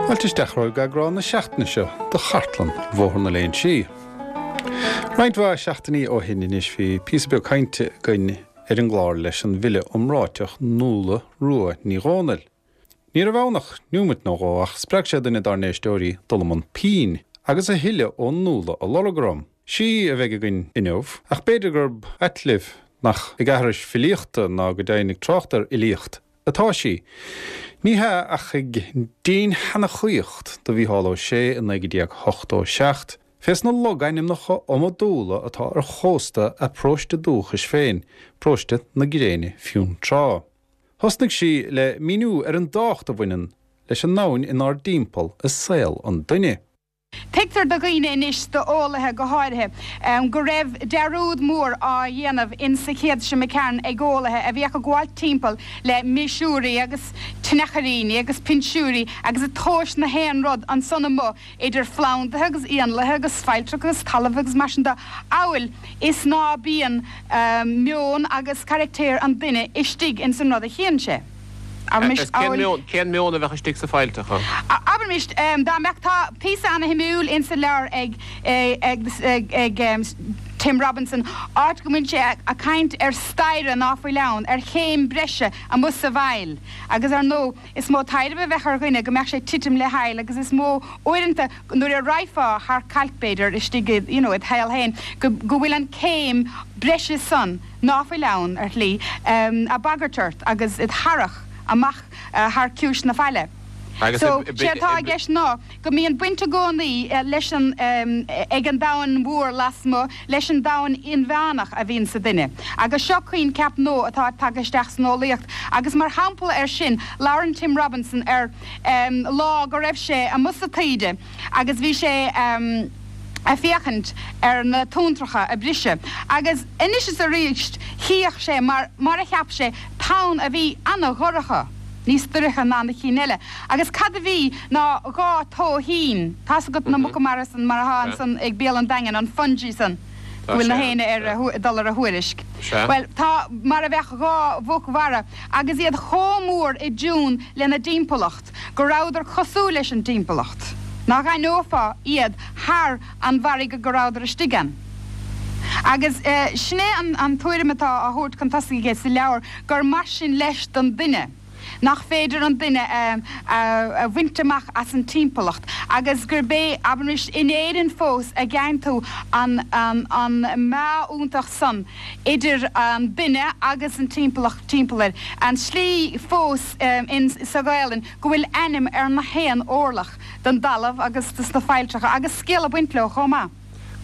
Fáilte isteach romhaibh go eagrán na seachtaine seo de Chartlann Bhóthar na Léinsí. Roinnt mhaith seachtainí ó shin anois bhí píosa beag cainte againn ar an gclár leis an bhfile iomráiteach Nuala Rua Ní Dhomhnaill. Ní raibh ann ach neomat nó dhó ach spreag sé duine dár n-éisteoirí dul i mbun pinn agus a thuilleadh ó Nuala a lorg orm. Sí a bheidh againn inniu, ach b'fhéidir gurb ait libh nach ag aithris filíochta ná go deimhin ag trácht ar fhilíocht atá sí. Ní hea, ach ag dinnshanachaíocht do Mhícheál Ó Sé i 1987, fés na logainmneacha iomadúla atá ar chósta a paróiste dúchais féin, paróiste na Gréine Fionntrá. Thosnaigh sí le míniú ar an dtábhacht a bhaineann leis an ndomhan inár dtimpeall i saol an duine. Tuigtear do dhaoine anois, d'eolaithe go háirithe, go raibh dearúd mór á dhéanamh in sa chéad seo imigh tharainn ag eolaithe a bhíodh ag gabháilt timpeall le miosúirí agus tionchairíní agus pinsiúirí agus ag tomhais na haon rud ansan amuigh idir phlandaithe agus éanlaithe agus failltreacha agus talamh agus mar sin de amhail is ná bíonn meon agus caractéir an duine istigh ins an rud a chíonn sé. Abraimis, amhail. Cén meon a bheadh istigh sa failltreacha? Abraimis, dá mbeadh, tá píosa ana-shuimiúil insa leabhar ag, ag, ag Tim Robinson, áit go mbíonn sé a' caint ar staighre ná fuil ann, ar chéim breise amuigh sa bhfaill. Agus ar ndóigh, is mó taidhreamh a bheadh ar dhuine go mbeadh sé ag titim le haill agus is mó uaireanta nuair a raghfá thar cailc b'fhéidir istigh i, you know, id shaol féin, go, go bhfuil an céim breise san, ná fuil ann, ar shlí, a' bagairt ort agus id tharrach amach thar ciumhais na faille. So, sé atá i gceist ná go mbíonn baint i gcónaí leis an, ag an domhan mhór lasmuigh leis an domhan inmheánach a bhíonn sa duine. Agus seo coincheap nua atá tagtha isteach san eolaíocht agus mar shampla air sin labhrann Tim Robinson ar lá go raibh sé amuigh sa taoide agus bhí sé a' féachaint ar na tonntracha a' briseadh agus anois is aríst chíodh sé mar mar a cheap sé tonn a bhí ana-dhorcha, níos doirche ná na cinn eile agus cad a bhí ná 2 tóithín, tá's agat na muca mara san mar athá ansan ag béal an Daingin, an fungi san go bhfuil na héinne ar a dul ar a thuairisc. Bhuel tá mar a bheadh 2 mhuc mhara agus iad chomh mór i dtiún lena dtimpeallacht. go rabhadar cosúil leis an dtimpeallacht, nach aithneofá iad thar an bhfarraige go rabhadar istigh ann. Agus sin é an tuairim atá á thabhairt chun tosaigh aige sa leabhar, gur mar sin leis don duine, nach féidir an duine a bhaint amach as an timpeallacht, agus gurb é, abraimis, in Éirinn fós a gheibheann tú an meá iontach san idir an duine agus an timpeallacht timpeall air, an tslí fós in sa Ghaelainn go bhfuil ainm ar na haon orlach den dtalamh agus de sna failltreacha agus scéal ag baint leo chomh maith.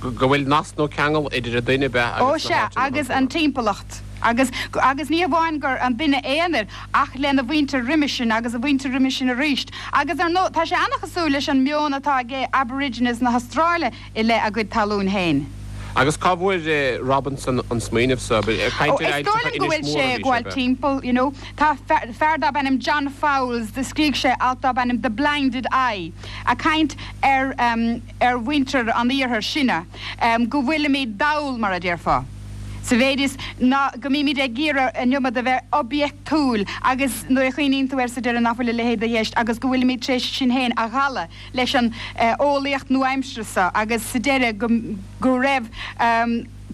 Go bhfuil nasc nó ceangal idir an duine, ab ea, Ó agus na sea, háiteanna agus an timpeallacht. Agus, agus ní hamháin gur an duine aonair ach lena mhuintir roimis sin agus a mhuintir roimis sin aríst. Agus ar ndóigh tá sé an-chosúil leis an meon atá ag Aborigines na hAstráile i leith a gcuid talún féin. Agus cá bhfuair Robinson an smaoineamh so? Ag caint ar Is dóigh liom go bhfuil sé ag gabháil timpeall, you know. Tá fear darb ainm John Fowles, do scrígh sé alt darb ainm The Blinded Eye, a' caint ar, ar mhuintir an iarthair, sinne, go bhfuilimid dall, mar a déarfá, sa mhéid is ná go mbímid ag iarraidh an iomad a bheith oibiachtúil agus nuair a chuimhníonn tú air sa deireadh nach bhfuil a leithéid i gceist agus go bhfuilimid tar éis sinn féin a dhalladh. leis an eolaíocht nua-aimseartha seo agus sa deireadh go go raibh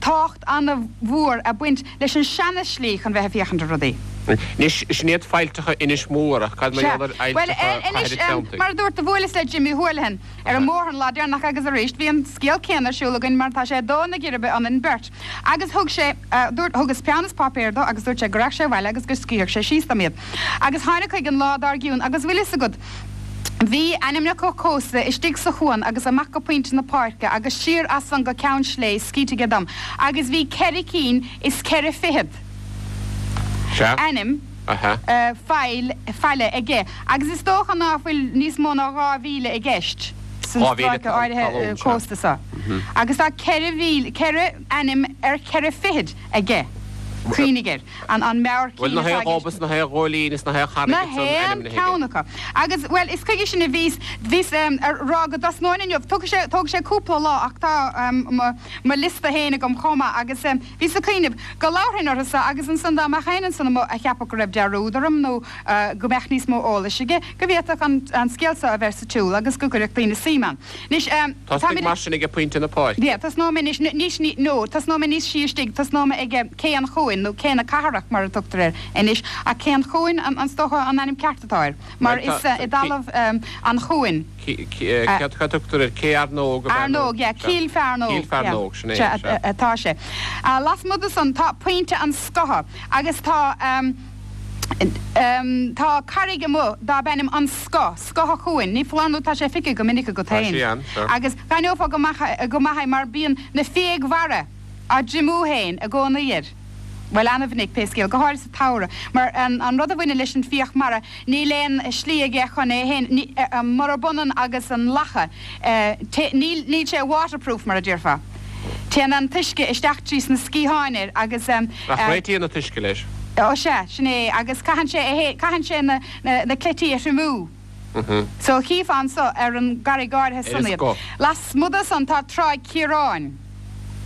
tábhacht an-mhór a' baint leis an seana-shlí chun bheith ag féachaint ar rudaí. Anois, sin iad failltreacha Inis Mór, ach cad mar Sea. gheall ar Bhuel, fhailltreacha anois, Chathair an Treanntaigh? mar a dúirt, do bhuaileas le Jimmy Houlihan ar an mbóthar an lá deireanach agus arís bhí an scéal céanna ar siúl againn mar tá sé ag dó na geirbe ionainn beirt. Agus thug sé, dúirt, thugas peann is páipéar dó agus dúirt sé go rachadh sé abhaile agus go scríobhadh sé síos dom iad. Agus tháinig chuige an lá dár gcionn agus bhfuil fhios agat, Bhí ainmneacha cósta istigh sa chuan agus amach go Pointe na Páirce agus siar as san go Ceann Slé scríte aige dom agus bhí ceithre cinn is ceithre fichead ainm faill, faille aige agus is dócha ná fuil níos mó ná 2,000 i gceist san stráice áirithe cósta so agus tá 4,000, 4 ainm ar cheithre fichid aige. Cuimhnigh air. An meabhair Bhuel, cinn na atá haon i ghob gceist. is na haon ghóilín is na haon charraig Na ansan haon ainmnithe aige. ceann acu. Agus, bhuel, is chuige sin a bhíos, bhíos a rá go dtosnóinn inniu. Tógfaidh sé, tógfaidh sé cúpla lá ach tá mo, mo liosta féin agam chomh maith agus bhíos ag cuimhneamh go labharfainn orthu so agus ansan dá mbeadh éinne ansan amuigh a cheapfadh go raibh dearúd orm nó go mbeadh níos mó eolais aige, go bhféadfadh an, an scéal so a bheith sa tsiúl agus go gcuirfeadh daoine suim ann. Anois, Tosnaigh táimid. mar sin ag Pointe na Páirce. Yeah, tosnóidh mé anois, níos, ní, no, tosnóidh mé níos sia istigh, tosnóidh mé ag Cé an Chuain, nó Cé na Cathrach mar a tugtar air anois, ach Cé an Chuain an, is dócha an ainm ceart atá air, mar Bhuel, tá, is i dtalamh an Chuain. Céard a tugtar air? Cé Fhearnóg ab ea nó? Fhearnóg, yeah, Cill Fearnóg, Cill Fearnóg, sin é, sea, sea. atá sé. Lasmuigh de san tá Pointe an Scotha agus tá, Tá carraig amuigh darb ainm An Scoth, Scoth a' Chuain, ní foláir nó tá sé feicthe go minic agat Tá féin. sí ann, sure. Agus d'aithneofá go maith go maith é mar bíonn na fiaigh mhara á dtriomú féin i gcónaí air. Bhuel, ana-mhinic, pé scéal, go háirid sa tsamhradh, mar an rud a bhaineann leis an bhfiach mara, níl aon slí aige chun é féin, murab ionann agus an lacha, níl, níl sé waterproof, mar a déarfá. Téann an t-uisce isteach trí sna sciatháin air agus. Ach réitíonn an t-uisce leis. Ó sea, sin é, agus caitheann sé é, caitheann sé na, na cleití a thriomú. So chífeá anso ar an gcarraig áirithe Ar san an iad. scoth. Lasmuigh de san tá Tráigh Chiaráin.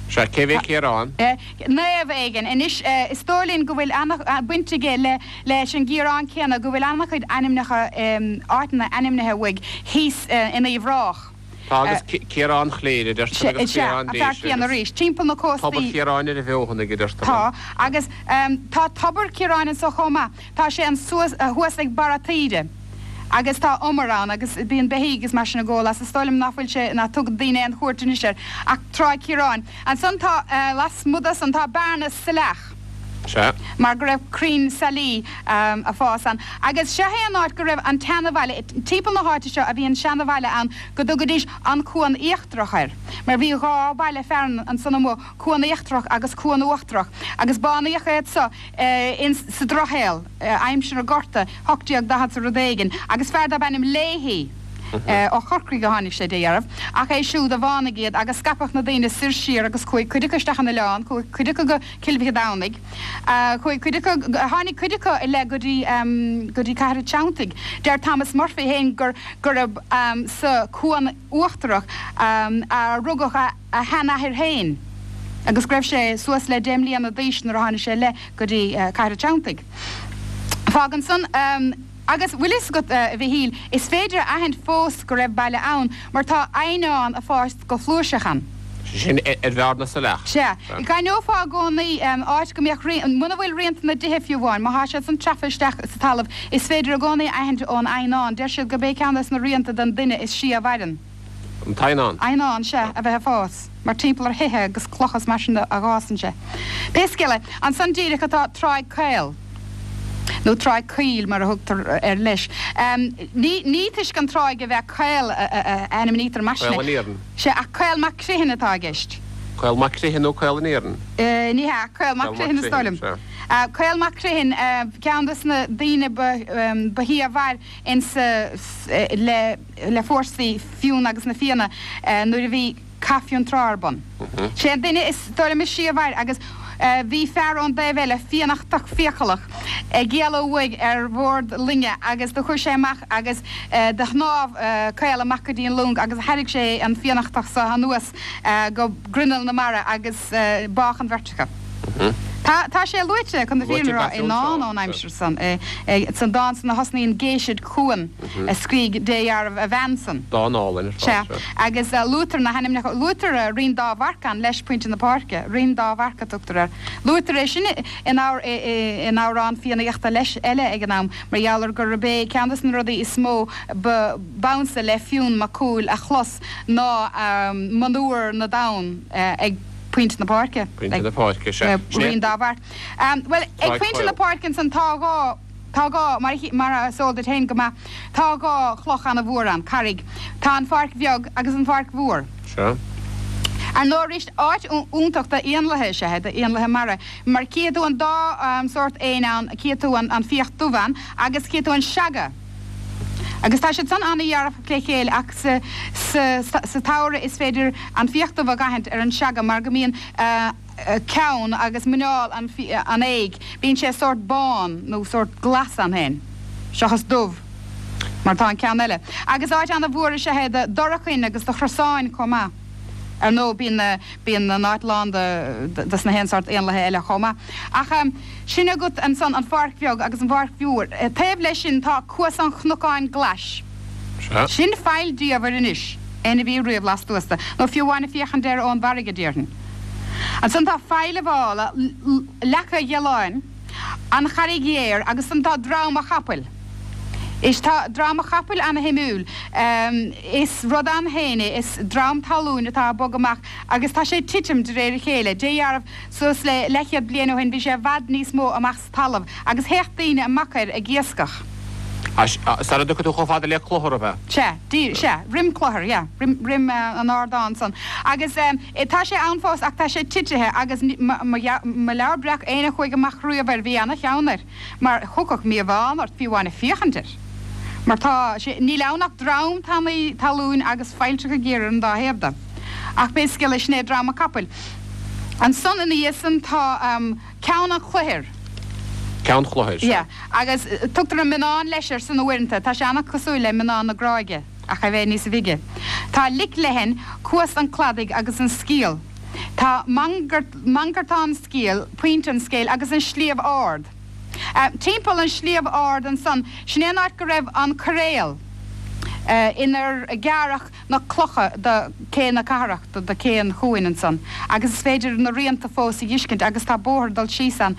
Sea, cé bhé Ciarán? Naomh éigin. Anois, is dóigh linn go bhfuil ana-bhaint aige le, leis an gCiarán céanna, go bhfuil ana-chuid ainmneacha, áiteanna ainmnithe uaidh thíos in Uíbh Ráthach. Tá agus Ciarán Chléire, a deirtear, agus Sea, Ciarán an fear Déise céanna agus arís. Timpeall na Tobar cóstaí. Chiaráin ar an bhFeothanaigh, a deirtear. Tá, agus tá Tobar Chiaráin anso chomh maith. Tá sé ansuas, thuas ag barra taoide agus tá umar ann agus bíonn beithígh agus mar sin ag ól as. Is dóigh liom ná fuil sé, ná tugann daoine aon chuairt anois air ach Tráigh Chiaráin. Ansan tá, lasmuigh de san, tá Bearna Saileach. Sea. Mar go raibh crainn sailí a' fás ann. Agus seo é an áit go raibh an tseanabhaile, timpeall na háite seo a bhí an seanabhaile ann go dtugaidís an Cuan Íochtarach air. Mar bhí dhá bhaile fearainn ansan amuigh, Cuan Íochtarach agus Cuan Uachtarach. Agus bánaíodh iad so ins sa Drochshaol, aimsir an Ghorta, 1840 's rud éigin. Agus fear darb ainm Leahy, ó Chorcaigh a tháinig sé, de dhealramh, ach é siúd a bhánaigh iad agus scaipeadh na daoine soir siar agus chuaigh cuid acu isteach an oileán, chuaigh cuid acu go Cill Mhic Domhnaigh. Chuaigh cuid acu, tháinig cuid acu i leith go dtí, go dtí Cathair an Treanntaigh. Deir Thomas Murphy féin gur, gurb sa Chuan Uachtarach a rugadh a, a sheanathair féin agus go raibh sé suas le deich mbliana d'aois nuair a tháinig sé i leith go dtí Cathair an Treanntaigh. Fágann san, agus bhfuil fhios agat, a Mhichíl, is féidir a aithint fós go raibh baile ann mar tá eidhneán a' fás go flúirseach ann. Sé sin ar Bhearna Saileach. Sea. D'aithneofá i gcónaí áit go mbeadh rian, muna bhfuil rianta na dtithe fiú amháin, má thá siad san treafa isteach sa talamh, is féidir i gcónaí a aithint ón eidhneán. Deir siad gurb é ceann des na rianta den duine is sia a mhaireann. An t-eidhneán. Eidhneán, sea, a bheith ag fás, mar timpeall ar thithe agus clocha is mar sin a dh'fhásann sé. Pé scéal é, ansan díreach atá Tráigh Caol, nó Tráigh Caoil mar a thugtar air leis. Ní, ní toisc an tráigh a bheith caol a ainmnítear mar sin é. Caol an Iarainn. Sea, ach Caol Mac Criomhthain atá i gceist. Caol Mac Criomhthain nó Caol an Iarainn? Ní hea, Caol Mac Criomhthain is dóigh liom. Caol Mac Criomhthain, ceann des na daoine ba, ba shia a mhair insa, le, le fórsaí Fionn agus na Fianna nuair a bhí Cath Fionntrá ar bun. Sé an duine is dóigh liom is sia a mhair agus bhí fear ón dtaobh eile, Fiannachtach fiacalach, ag éaló uaidh ar bhord loinge agus do chuaigh sé amach agus do shnámh Caol amach go dtí an long agus thairrig sé an Fiannachtach so anuas go grinneall na mara agus bádh an bheirt acu. Tá, tá sé luaite, chun na fírinne a rá, i ndán ón aimsir san, san dán san a thosnaíonn Géisid chugham, a scrígh dé dhealramh a bhean san. Dán álainn ar fad, Sea, sea. agus luaitear na hainmneacha, luaitear Rinn Dá Mharc ann leis, Pointe na Páirce, Rinn Dá Mharc a tugtar air. Luaitear é sin in in amhrán Fiannaíochta leis eile ag an am, mar gheall ar gurb é ceann de na rudaí is mó ba b'ansa le Fionn Mac Cumhaill a chlos ná monuar na dtonn ag Pointe na Páirce. Pointe na Páirce, sea. Rinn Dá Mharc. Bhuel, ag Pointe na Páirce ansan tá dhá, tá dhá, mar, mar is eol duit féin go maith, tá dhá chloch ana-mhór ann, carraig. Tá an Pháirc Bheag agus an Pháirc Mhór. Sea. Ar ndóigh arís, áit iontach d'éanlaithe is ea é, d'éanlaithe mara, mar cífidh tú an dá sórt éin ann, cífidh tú an fiach dubh ann agus cífidh tú an seaga. Agus tá siad san an-dhearfach le chéile ach sa sa tsamhradh is féidir an fiach dubh a dh'aithint ar an seaga mar go mbíonn ceann agus muineál an fhéich, bíonn sé sórt bán nó sórt glas ann féin, seachas dubh mar atá an ceann eile. Agus áit ana-mhór is ea é do dhorchain agus do chrosáin chomh maith. Ar ndóigh, bíonn na, bíonn an áit lán de, dos na haon sórt éanlaithe eile chomh maith. Ach sin agat ansan an Pháirc Bheag agus an Pháirc Mhór. Taobh leis sin tá Cuas an Chnocáin Ghlais. Sea. Sin faill diamhair anois, éinne a bhí riamh lastuas de, nó fiú amháin ag féachaint air ón bhfarraige, déarfainn. Ansan tá Faill a' Mhála, Leaca Ghealáin, An Charraig Ghéar agus ansan tá Drom a' Chapaill. Is tá Drom a' Chapaill ana-shuimiúil. Is rud ann féin é, is drom talúin atá ag bogadh amach agus tá sé ag titim de réir a chéile. Dé dheáramh, suas le leathchéad bliain ó shin bhí sé i bhfad níos mó amach sa talamh agus théadh daoine amach air ag iascach. Sara dtiocfaidh tú chomh fada le Clochar, ab ea? Sea, díreach, sea, roim Clochar, yeah, roim, roim an ardán san. Agus tá sé ann fós ach tá sé titithe agus mo, mo leabhar breac, éinne a chuaigh amach riamh air, bhí ana-cheann air mar thiocfadh míobhán ort fiú amháin ag féachaint air. Mar tá sé, níl ann ach drom tanaí talúin agus failltreacha géara ar an dá thaobh de. Ach pé scéal é, sin é Drom a' Capaill. Ansan ina dhiaidh san tá. Ceann an Chloichir. Ceann Chloichir, sea. Yeah. Agus tugtar an Mionnán leis air san uaireanta. Tá sé an-cosúil le Mionnán na Gráige, ach é bheith níosa bhige. Tá Lic Leathain, Cuas an Chladaigh agus an Sciall. Tá Mangartán Sciall, Pointe an Scéil agus an Sliabh Ard. Timpeall an Sliabh Ard ansan, sin é an áit go raibh an coiréal inar gearradh na clocha do cé na cathrach, do cé an chuain ansan agus is féidir na rianta fós a dh'fheiscint agus tá bóthar ag dul síos ann,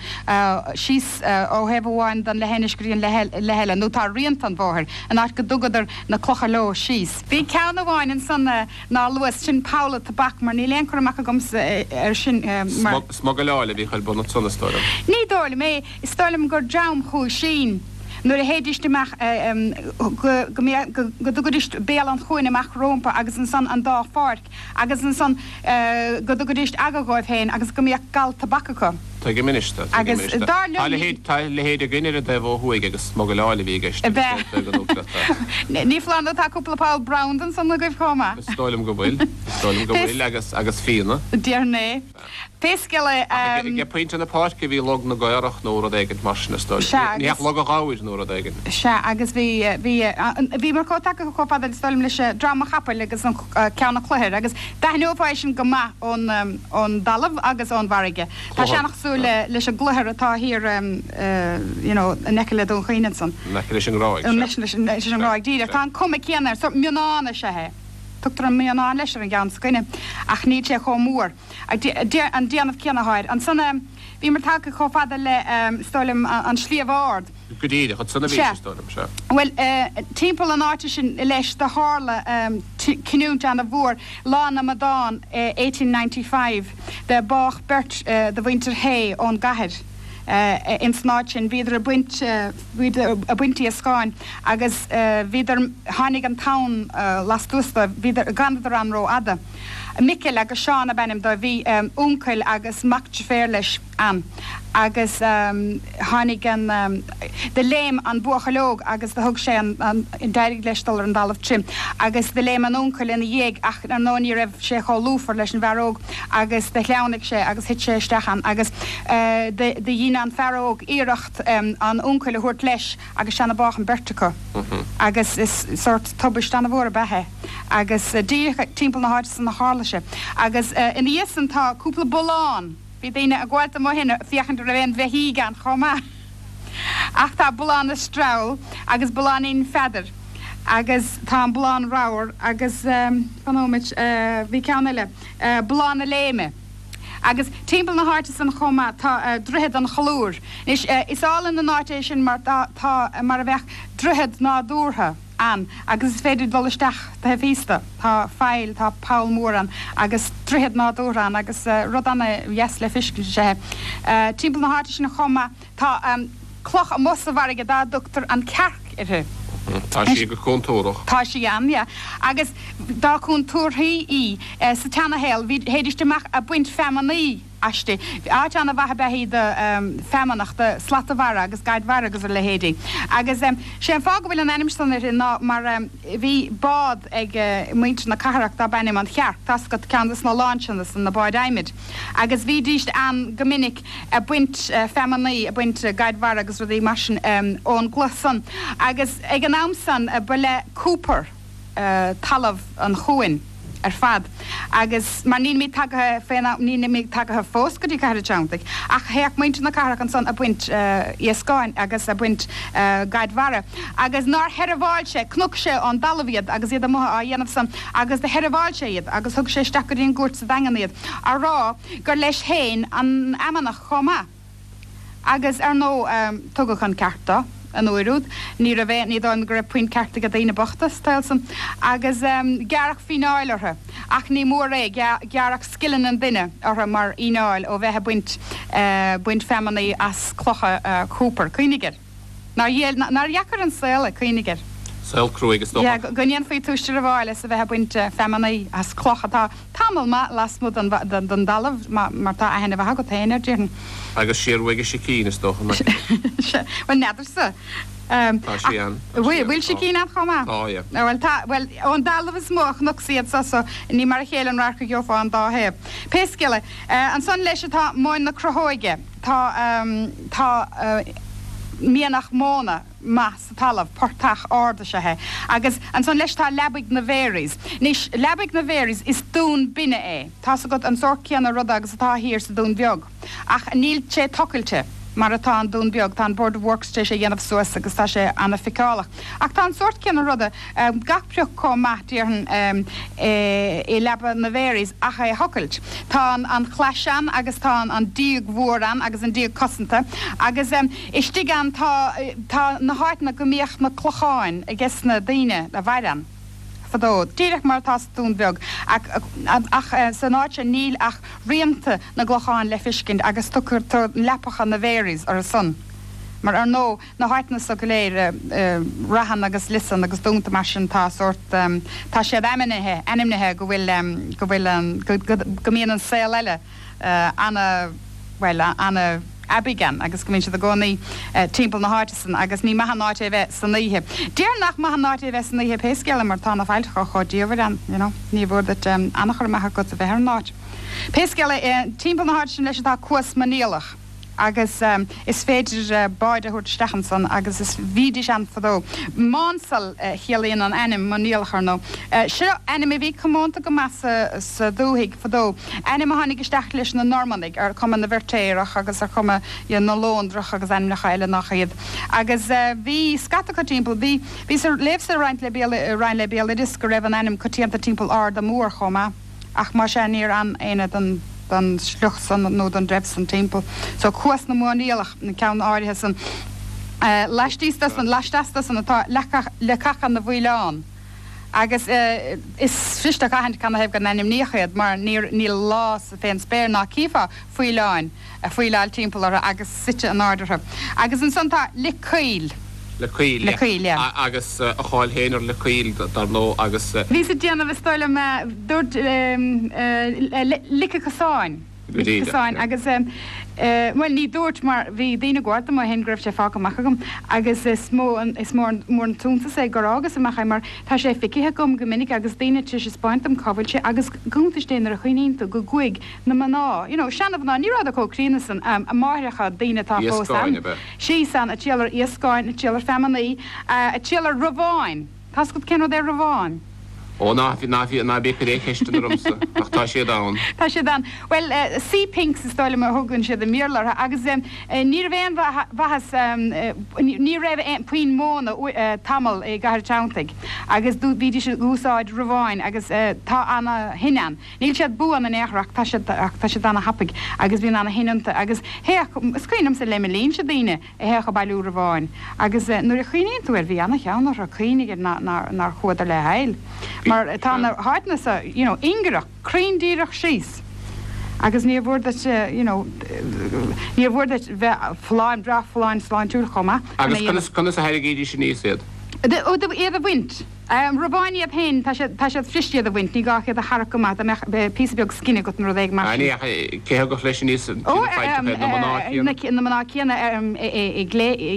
síos ó thaobh amháin den leithinis go dtí an leith eile, nó tá rianta an bhóthair, an áit go dtugadar na clocha leo síos. Bhí ceann amháin ansan nár luas, sin Poll a' Tobac, mar níl aon chur amach agamsa air sin mar. Smugairleáil a bhíodh ar bun ansan, is dóigh liom. Ní dóigh liom é. Is dóigh liom gur dream chuaigh sínn nuair a théidíst amach go go go dtugaidíst béal an chuain amach rómpa agus ansan an dá pháirc agus ansan go dtugaidíst aga dhóibh féin agus go mbíodh gal tobac acu. Tuigim anois do, tuigim anois do. Agus dar liom ní. Tá a leithéid againn ar an dtaobh ó thuaidh agus smugairleáil a bhí i gceist agus é ag an uachtarach. Ní foláir nó tá cúpla poll branda ansan agaibh chomh maith. Is dóigh liom go bhfuil, is dóigh liom go bhfuil agus agus fíona. Déarfainn é. Pé scéal é. Ach ag pointe na páirce bhí Log na gCaorach nó rud éigint mar sin, is dóigh. Sea, Ní agus. hea, Log an Ghabhair nó rud éigin. Sea, agus bhí, bhí, bhíomar chomh tagtha chomh fada, is dóigh liom, leis Drom an Chapaill agus an Ceann an Chloichir agus d'aithneofá é sin go maith ón, ón dtalamh agus ón bhfarraige. Tá sé an-chosúil le, leis an gcloichear atá thiar, you know, in aice le Dún Chaoin ansan. In aice leis an nGráig, sea. In aice leis an nGráig, díreach. Tá an cuma céanna air, sórt mionnán is ea é. Tugtar an Mionnán leis ar an gceann s'againne, ach níl sé chomh mór. An déanamh céanna atá air. Ansan, bhíomar tagtha chomh fada le, is dóigh liom, an Sliabh Ard. Go díreach, ansan a bhís, is dóigh liom, sea. Bhuel, timpeall an áite sin leis, do tharla cinniúint ana-mhór, Lá na Amadán, 1895, do bádh beirt de mhuintir Hay ón gcathair ins an áit sin. Bhíodar ag baint. Bhíodar ag baint iascáin agus bhíodar, tháinig an tonn lastuas dóibh, bhíodar, d'fhanadar ann ró-fhada. Micil agus Seán ab ainm dóibh, bhí uncail agus mac deirféar leis ann agus tháinig an, do léim an buachaill óg agus do thug sé an, d'éirigh leis dul ar an dtalamh tirim agus do léim an uncail ina dhiaidh ach ar ndóigh ní raibh sé chomh lúfar leis an bhfear óg agus do shleamhnaigh sé agus thit sé isteach ann agus do dhein an fear óg iarracht an uncail a thabhairt leis agus sin a bádh an beirt acu agus is sórt tubaist ana-mhór ab ea é agus díreach timpeall na háite san a tharla sé agus ina dhiaidh san tá cúpla bullán, bhí daoine ag gabháilt amuigh ann ag féachaint an raibh aon bheithígh ann chomh maith ach tá Bullán na Streall agus Bulláinín Pheadair agus tá an Bullán Ramhar agus fan nóiméad bhí ceann eile, Bullán na Léime. Agus timpeall na háite san chomh maith tá Droichead an Cholúir. Anois, is álainn an áit é sin mar tá mar a bheadh droichead nádúrtha ann agus is féidir dul isteach taobh thíos de. Tá faill, tá poll mór ann agus droichead nádúrtha ann agus rud ana-dheas le feiscint is ea é. Timpeall na háite sin chomh maith tá cloch amuigh sa bhfarraige dá dtugtar an Cearc uirthi. Tá sí go contúrach. Tá sí ann, yeah. Agus dá contúrthaí í, sa tseanashaol, bhí, théidíst amach a' baint feamainní. Aisti. Áit ana-mhaith ab ea í do feamnach, do slata mhara agus gaid mhara agus a leithéidí. Agus sé an fáth go bhfuil an ainm san uirthi ná mar bhí bád ag muintir na cathrach darb ainm An Chearc, tá's agat, ceann de sna lainseanna san, na báid adhmaid. Agus bhídíst ann go minic ag baint feamnaí, ag baint gaid mhara agus rudaí mar sin ón gcloich san. Agus ag an am san ba le Cooper. talamh an chuain ar fad agus mar nílimid tagaithe fén am, nílimid tagaithe fós go dtí Cathair an Treanntaigh ach théadh muintir na cathrach ansan a' baint iascáin agus a' baint gaid mhara agus nár sheirbheáil sé, chnoc sé ón dtalamh iad agus iad amuigh á dhéanamh san agus do sheirbheáil sé iad agus thug sé isteach go dtí an gcúirt sa Daingean iad á rá gur leis féin an fheamnach chomh maith. Agus, ar ndóigh, tugadh an ceart dó an uair úd. Ní raibh aon, ní dóigh liom go raibh puinn ceart ag daoine bochta sa tsaol san. Agus gearradh fíneáil orthu. Ach ní mór é, gearradh scilling an duine orthu mar fhíneáil ó bheith ag baint, baint feamnaí as clocha Cooper. Cuimhnigh air. Nár nár dheacair an saol é, cuimhnigh air. Saol cruaidh is dócha. Yeah, go ndéanfaí tú seirbheáil as a bheith ag baint feamnaí as cloch atá tamall maith lasmuigh den den dtalamh, mar tá aithne mhaith agat féin air, déarfainn. Agus siar uaidh i sicín, is dócha, nach ea? Bhuel, n'fheadarsa. Tá sí ann. Bhfuil sicín ann chomh maith? Tá, yeah. Bhuel, tá, bhuel, ón dtalamh is mó a chonacsa iad so, so ní mar a chéile an radharc a gheofá an dá thaobh. Pé scéal é, ansan leis atá Móin na Crothóige. Tá, tá mianach móna maith sa talamh, portach ard is ea é. Agus ansan leis tá Leabaidh na Mharys. Anois, Leabaidh na Mharys, is dún binne é. Tá's agat an sórt céanna ruda agus atá thiar sa Dún Bheag. Ach níl sé tochailte mar atá an Dún Beag, tá an Board of Works tar éis é dhéanamh suas agus tá sé ana-fheiceálach. Ach tá an sórt céanna ruda, gach prioc chomh maith, déarfainn, i Leaba na Mharys ach é a thochailt. Tá an chlais ann agus tá an díog mhór ann agus an díog cosanta agus istigh ann tá tá na háiteanna go mbíodh na clocháin ages na daoine a mhair ann fadó, díreach mar atá sa Dún Bheag ach san áit seo níl ach rianta na gclochán le feiscint agus tugtar leapacha na Mharys orthu san mar ar ndóigh na háiteanna so go léir, Raithin agus Liosanna agus dúnta mar sin, tá sórt, tá siad ainmnithe, ainmnithe go bhfuil, go bhfuil an, go, go, go mbíonn an saol eile ana, bhuel, ana aibidh ann agus go mbíonn siad i gcónaí timpeall na háite san agus ní maith an áit é bheith san oíche. Déarfainn nach maith an áit é bheith san oíche pé scéal é mar tá na faillteacha chomh diamhair ann, you know, ní mhór duit an-chur amach agat a bheith ar an áit. Pé scéal é, timpeall na háite sin leis atá Cuas Mainialach. agus is féidir báid a thabhairt isteach ansan agus is bhídís ann fadó. Mánsal a chiallaíonn an ainm Mainialach ar ndóigh. Seo ainm a bhí comónta go maith sa dúthaigh fadó, ainm a tháinig isteach leis na Normannaigh ar chuma na bhFeirtéarach agus ar chuma na Lóndrach agus ainmneacha eile nach iad. Agus bhí scata acu timpeall. Bhí, bhíos ag léamh sa Roinn le Roinn le Béaloideas go raibh an ainm coitianta timpeall Arda Mór chomh maith. Ach más ea níor fhan éinne den den sliocht san nó den dtreibh san timpeall. So Cuas na Mainialach, an ceann áirithe san. Laistíos de san, laisteas de san atá Leacacha na bhFaoileán. Agus is fuirist a aithint canathaobh go n-ainmníodh iad mar níor níl lá sa fén spéir ná cífeá faoileáin. ag faoileáil timpeall orthu agus suite in airde orthu. Agus ansan tá Lic Caoil. Lic Caoil, yeah. Lic Caoil, yeah. Agus a cháil féin ar Lic Caoil, dar ndóigh, agus. Bhíos ag déanamh, is dóigh liom, dúirt Lic an Chosáin. Go díreach, yeah. Lic an Chosáin agus, bhuel, ní dúirt mar bhí daoine ag gabháil dom ó shin go raibh sé fágtha amach agam agus is mó an, is mór an t-iontas é gur fhágas amach é mar tá sé feicthe agam go minic agus daoine tar éis a 'speáint dom cá bhfuil sé agus go hiontais é nuair a chuimhníonn tú go gcuaigh na mná, you know, seana-mhná, ní rabhadar chomh críonna san, máithreacha, daoine atá fós Iascáin, ab ea? Síos ann, ag triall ar iascáin, ag triall ar feamnaí, ag triall ar rabháin. Tá's agat cén rud é rabhán? Ó, ná, ná, ná bí ag cur aon cheisteanna ormsa, ach tá siad ann. Tá siad ann. Bhuel, sea pinks is dóigh liom a thugann siad i mBéarla orthu agus ní raibh aon mhaitheas, ní raibh aon puinn móna tamall i gCathair Treanntaigh agus bhídís ag úsáid rabháin agus tá ana-thine ann. Níl siad buan in aon chor ach tá siad ach tá siad ana-thapaidh agus bíonn ana-thine iontu agus théadh, is cuimhin liomsa le mo linnse daoine a théadh ag bailiú rabháin agus nuair a chuimhníonn tú air bhí ana-cheann orthu, cuimhnigh air nár nár chuadar le haill mar tá na háiteanna so you know ingearach, cruinn díreach síos agus níor mhór duit you know níor mhór duit bheith folláin, breá folláin sláintiúil chomh maith chun é a Agus conas conas a tharraingídís aníos iad? Iad a bhaint. Robáin iad féin, tá siad, tá siad fuirist iad a bhaint, ní gá ach iad a tharrac go maith, dá mbeadh píosa beag scine agat nó rud éigin mar sin. Cé a thugadh leis aníos na failltreacha iad, na mná céanna? Na mná céanna i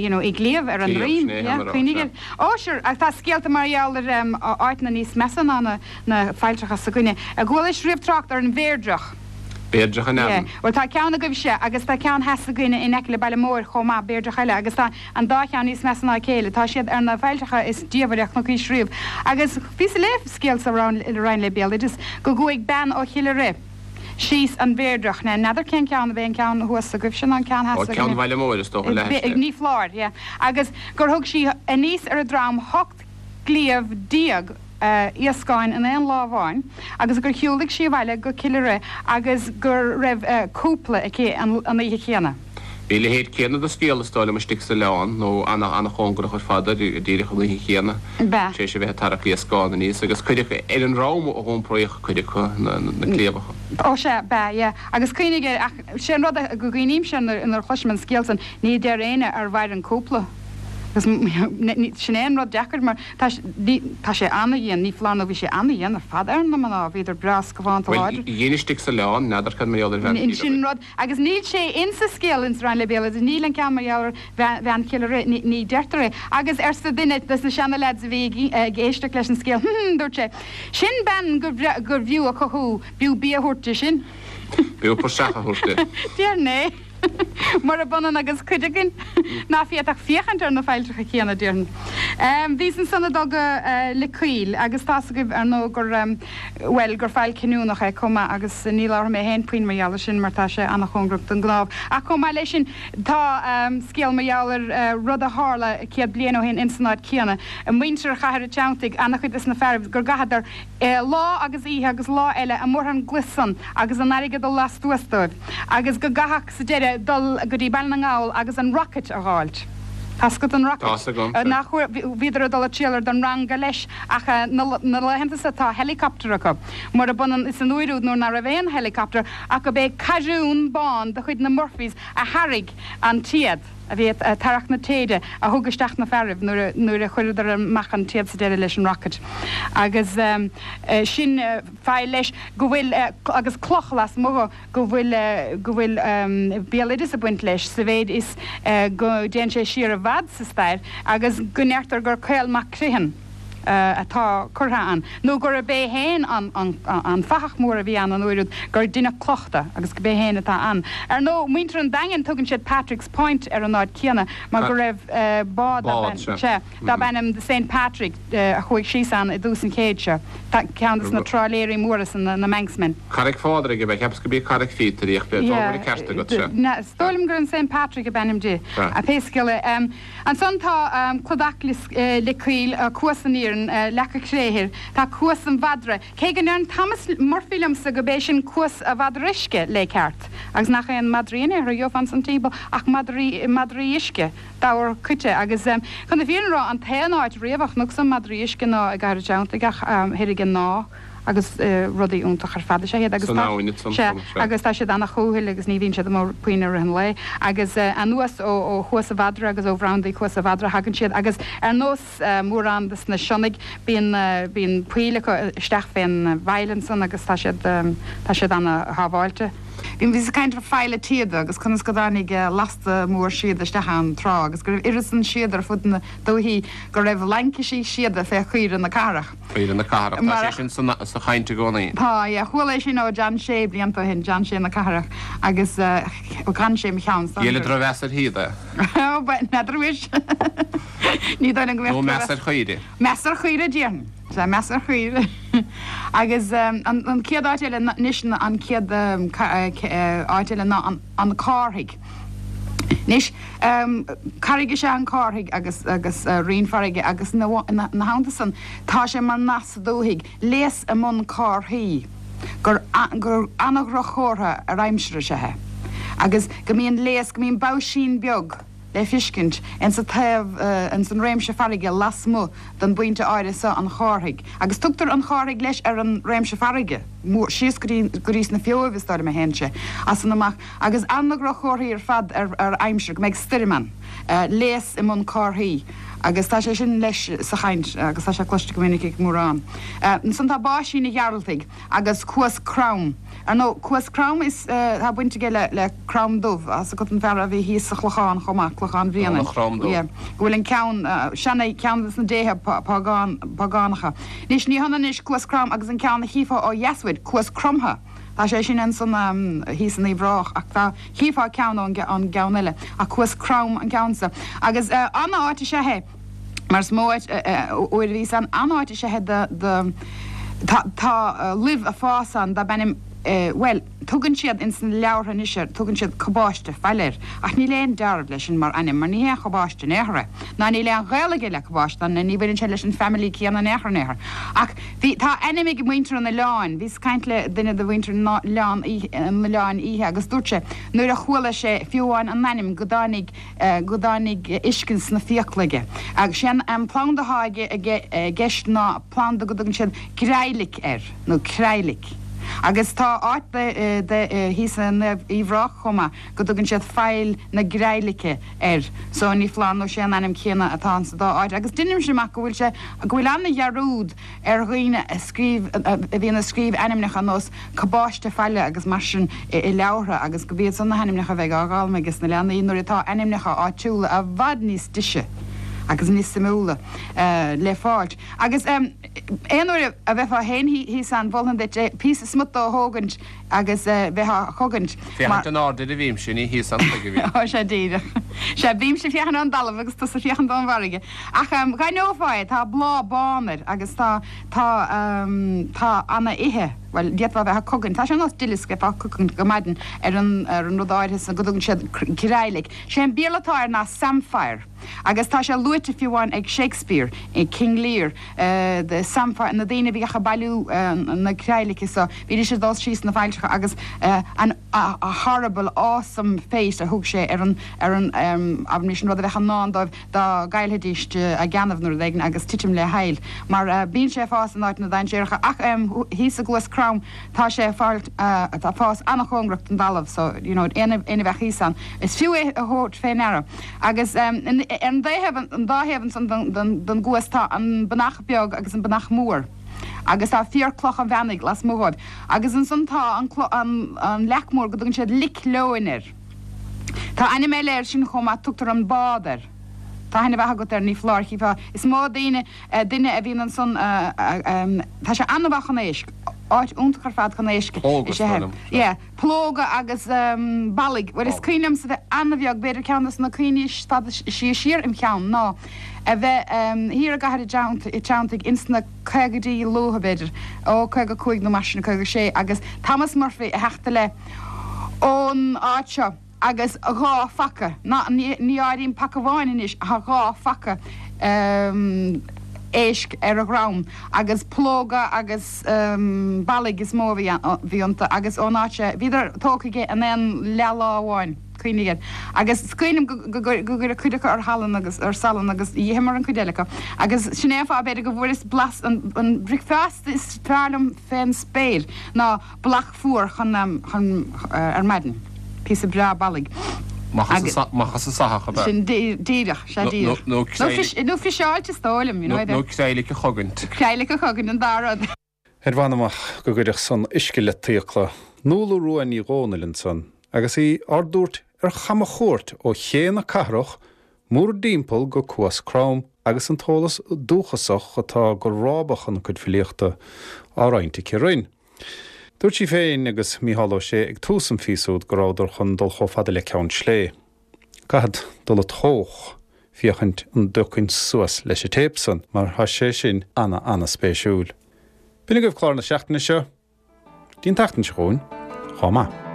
you know, i gcliabh ar a ndroim, yeah, cuimhnigh air. Ó, sure, ach tá scéalta mar gheall ar áiteanna níos measa ná na na failltreacha s'againne. Ar chualais riamh trácht ar an Bhéirdreach? Béirdreach in ainm. Yeah, bhuel tá ceann agaibhse agus tá ceann theas againne in aice le Baile Móir chomh maith, Béirdreach eile, agus tá An dá cheann níos measa ná a chéile. Tá siad ar na failltreacha is diamhaire a chonaicís riamh. Agus bhíos ag léamh scéal sa Roinn le Béaloideas go gcuaigh bean ó Chill Ire síos an Bhéirdreach. Now n'fheadar cén ceann, ab é an ceann thuas agaibhse nó an ceann theas Ó, ceann againne. Bhaile Móir is dócha, leathaiste. Ní foláir, yeah. Agus gur thug sí aníos ar a drom 18 gcliabh iascáin in aon lá amháin agus gur shiúlaigh sí abhaile go Cill Ire agus go raibh cúpla aici an oíche chéanna. Bhí a leithéid céanna de scéal, is dóigh liom, istigh sa oileán, nó ana-chóngarach ar fad air, díreach an oíche chéanna, tar éis a bheith ag tarrac iascán aníos, agus cuid acu ar an ndrom a h'iompraíodh cuid acu na cliabhacha. Ó sea, b'ea, yeah. Agus cuimhnigh air, ach sé an rud go gcuimhnímse nuair a chloisim an scéal san, ní deir éinne ar mhair an cúpla. Agus sin é an rud deacair mar tá tá sé ana-dhian, ní foláir nó bhí sé ana-dhian ar fad ar na mná, bhíodar breá scafánta Bhuel, láidir. dhein istigh sa oileán, n'fheadar cad mar gheall ar bhean Sin an rud, agus níl sé insa scéal ins Roinn le Béaloideas, níl an ceann mar gheall ar bhean Chill Ire, ní deirtear é. Agus arsa duine des na seana-leaids a bhí ag éisteacht leis an scéal, hm, dúirt sé, sin bean gur bhfiú a cothú, b'fhiú bia a thabhairt di sin. B'fhiú praiseach a thabhairt di. Déarfainn é. Murab ionann agus cuid againn ná féadfadh féachaint ar na failltreacha céanna, déarfainn. Bhíos ansan ag dul go Lios Caoil agus tá's agaibh, ar ndóigh, gur, bhuel, gur faill cinniúnach é chomh maith agus ní labharfaidh mé féin puinn mar gheall ar sin mar tá sé an-chóngarach don gCnámh. Ach chomh maith leis sin, tá scéal mar gheall ar rud a tharla 100 bliain ó shin ins an áit céanna. Muintir Chathair a' Treanntaigh, an-chuid des na fearaibh, gur gcaitheadar lá agus oíche agus lá eile amuigh ar an gclaí san agus an fharraige ag dul lastuas dóibh agus go gcaithfeadh sa deireadh dul go dtí Baile na nGall agus an rocket a dh'fháilt. Tá's agat an rocket? Tá's agam, sea. Nach bhíodar ag dul ag triall ar don ranga leis ach na laethanta so tá helicopter acu. Murab ionann is an uair úd nuair ná raibh aon helicopter ach go b'é carriún bán de chuid na Murphys a tharraig an téad. a bhí ag tarrac na téide a thug isteach na fearaibh nuair a chuireadar amach an téad sa deireadh leis an rocket. Agus sin faill leis go bhfuil, agus cloch lasmuigh dho, go bhfuil, go bhfuil béaloideas ag baint leis sa mhéid is go dtéann sé siar i bhfad sa stair agus go ndeirtear gur Caol Mac Criomhthain, atá curtha ann, nó gurb é féin an fathach mór a bhí ann an uair úd, gur deineadh cloch de agus gurb é féin atá ann. Ar ndóigh, muintir an Daingin, tugann siad Patrick's Point ar an áit céanna, mar go raibh bád darb ainm The Saint Patrick a chuaigh síos ann i dtús an chéid seo, ceann de na trálaeirí móra san, na Manxmen. Carraig Phádraig ab ea? Cheapas gurb í Carraig Phíotair í ach b'fhéidir go bhfuil an ceart agat, sea. Is dóigh liom gur an Saint Patrick ab ainm di, pé scéal é. Ansan tá Cladach Lios Caoil, Cuas an Iarainn, Leaca Créthir, tá Cuas an Mhadra, cé go ndeireann Thomas Murphy liomsa go b'é sin Cuas a' Mhadra Uisce lé ceart, agus nach aon madraí in aon chor a gheofá ansan timpeall ach madraí, madraí uisce, dobhar coite, agus chun na fírinne a rá, an t-aon áit riamh a chonacsa madraí uisce ná i gCathair an Treanntaigh ach thoir ag an Ná. agus rudaí iontach ar fad is ea iad agus San tá, abhainn ansan, sea, sea. agus tá siad ana-chúthail agus ní bhíonn siad amuigh puinn i rith an lae. Agus anuas ó, ó Chuas a' Mhadra agus ó bhrandaí Chuas a' Mhadra thagann siad agus ar nós mórán des na sionnaigh bíonn, bíonn poill acu isteach fén bhfaill ansan agus tá siad, tá siad ana-shábháilte. Bhíos ag caint ar Faill a' tSíoda agus conas go dtáinig lasta mór síoda isteach ann tráth agus go raibh oiread san síoda ar fud na dúichí go raibh laincisí síoda fé chaoire na cathrach. Caoire na cathrach, tá sé sin sa chaint i gcónaí. Tá, yeah. Chuala é sin ó John Shea blianta ó shin, John Shea na cathrach, agus d'fhan sé i mo cheann. Dhíol drochmheas ar shíoda é. Ó, n'fheadar anois. Ní dóigh liom go mbeadh Nó meas ar chaoire. Meas ar chaoire, déarfainn. Sea, meas ar chaoire. Agus an chéad áit eile anois, an chéad áit eile ná an Cárthaigh. Anois, carraig is ea an Cárthaigh agus agus rinn farraige agus ina theannta san tá sé mar nath sa dúthaigh, léas i mbun cárthaí, gur gur ana-dhroch-chomhartha ar aimsir is ea é. Agus go mbíonn léas, go mbíonn baisín beag le fiscint ins an taobh, ins an réimse farraige lasmuigh den bpointe áirithe so an Chárthaigh. Agus tugtar an Chárthaigh leis ar an réimse farraige, mór, síos go dtí, go dtí sna Feabhaibh is dóigh liom a théann sé, as san amach. Agus ana-dhroch-chomharthaí ar fad ar aimsir, go mbeidh stoirm ann, léas i mbun cárthaí. Agus tá sé sin leis sa chaint agus tá sé cloiste go minic ag mórán. Ansan tá Báisín a' Ghearaltaigh agus Cuas Crom. Ar ndóigh, Cuas Crom is tá baint aige le le Crom Dubh, tá 's agat an fear a bhí thíos sa Chlochán chomh maith, Clochán Bhrianain. Crom Dubh. Yeah. Go bhfuil an ceann, seana, ceann des na déithe págán, págánacha. Anois ní hionann anois Cuas Crom agus an ceann a chífeá ó dheas uait, Cuas Cromtha. Tá sé sin ansan thíos in Uíbh Ráthach ach tá, chífeá ceann ón gceann eile ach Cuas Crom an ceann so. Agus an-áit is ea é mar is mó áit uair a bhíos ann, an-áit is ea é do, do, tá, tá luibh a' fás ann darb ainm bhuel, tugann siad ins na leabhartha anois air, tugann siad cabáiste faille air ach níl aon dealramh leis sin mar ainm mar ní hé an chabáiste in aon chor é ná níl aon ghaol aige le cabáiste ná ní bhaineann sé leis an family céanna in aon chor in aon chor ach Bhí, tá ainm ag muintir an oileáin. Bhíos ag caint le duine de mhuintir an oileáin oíche agus dúirt sé nuair a chuala sé fiú amháin an ainm go dtáinig, go dtáinig uisce sna fiacla aige. Agus sé an planda atá i gceist ná planda go dtugann siad greidhlic air, nó creidhlic. Agus tá áit de, de, thíos in Uíbh Ráthach chomh maith go dtugann siad Faill na Greidhlice air so ní foláir nó sé an ainm céanna atá ann sa dá áit agus deinimse amach go bhfuil sé, go bhfuil ana-dhearúd ar dhaoine a scríobh, a bhíonn ag scríobh ainmneacha ar nós Cabáiste Faille agus mar sin i leabhartha agus go b'iad san na hainmneacha a bheidh á bhfoghlaim ages na leanaí nuair atá ainmneacha áitiúla i bhfad níos deise agus níos suimiúla le fáilt. Agus aon uair a bheifeá féin thíos ann mholfainn duit píosa smut dó a thógaint agus bheith á chogaint. Féachaint in airde a bhímse, ní thíos ann chuige a bhím. Ó, sea díreach. Sea, bímse ag féachaint ón dtalamh agus tusa ag féachaint ón bhfarraige. Ach dh'aithneofá é, tá bláth bán air agus tá, tá, tá ana-ithe, bhuel, d'fhéadfá a bheith á cogaint, tá sé ar nós duileasc, bheifeá á cogaint go maidin ar an, ar an rud áirithe san go dtugann siad greidhlic. Sé an Béarla atá air ná samphire. Agus tá sé luaite fiú amháin ag Shakespeare i King Lear, the samphire, na daoine a bhíodh ag bailiú na creidhlice so, bhídís ag dul síos na failltreacha agus an a horrible, awesome fate a thug sé ar an, ar an, abraimis, an rud a bheadh i ndán dóibh dá gcaillfidís a gceannaibh nó rud éigin agus titim le haill. Mar bíonn sé ag fás in áiteanna dainséaracha ach thíos i gCluas Crom, Tá sé ag fáil, ag fás an-chóngarach don dtalamh so, you know, éinne a bheadh thíos ann, is fiú é a thabhairt fé ndeara. Agus ar an dtaobh, an dá thaobh ansan den gcuas tá an Banach Beag agus an Banach Mór agus tá fíor-cloch an mheanaigh lasmuigh dhóibh. Agus ansan tá an, an leac mór go dtugann siad Lic Leoin air. Tá ainm eile air sin chomh maith, tugtar an Bád air. Tá aithne mhaith agat air, ní foláir, chífeá, is mó daoine, duine a bhíonn ansan, tá sé an-mhaith chun éisc, áit iontach ar fad chun éisc is ea é. Yeah, plóga agus ballaigh. Bhuel, is cuimhin liomsa bheith an-bheag, b'fhéidir ceann de na cuimhní is fada siar im cheann ná a bheith thiar i gCathair a' Treanntaigh ins na caogaidí luatha, b'fhéidir, ó 55 nó mar sin, 56, agus Thomas Murphy a theacht i leith ón áit seo. agus 2 phaca, ná ní áirím paca amháin anois, ach 2 phaca éisc ar a dhrom, agus plóga agus ballaigh is mó a bhí iontu, agus ón áit seo, bhíodar tógtha aige in aon leath-lá amháin, cuimhnigh air. Agus is cuimhin liom go gcuireadh cuid acu ar shalann agus ar salann agus dh'itheamar an cuid eile acu. Agus sin é an fáth, b'fhéidir, go bhfuaireas blas an bricfeasta is fearr liom fén spéir ná Ballach fuar chun chun ar maidin. Píosa breá ballaigh. Amach as an soitheach, ab ea? Sin díreach, sea díreach. Nó nó nó friseáilte is dóigh liom, you know. Nó creidhlic a chogaint. Creidhlic a chogaint, an dá rud. Ar mh'anam ach go gcuirfeadh san uisce let d'fhiacla. Nuala Rua Ní Dhomhnaill ansan agus í ár dtabhairt ar chamachuairt ó Ché na Cathrach mórdtimpeall go Cuas Crom agus an t-eolas dúchasach atá go rábach ina cuid filíochta á roinnt aici linn. Dúirt sí féin agus Mícheál Ó Sé ag tús an phíosa úd go rabhadar chun dul chomh fada le Ceann Slé. Caithfead dul ag tóch féachaint an dtiocfainn suas leis an téip san mar tá sé sin ana ana spéisiúil. B'in agaibh clár na seachtaine seo. Dtí an tseachtain seo chugainn, chomh maith.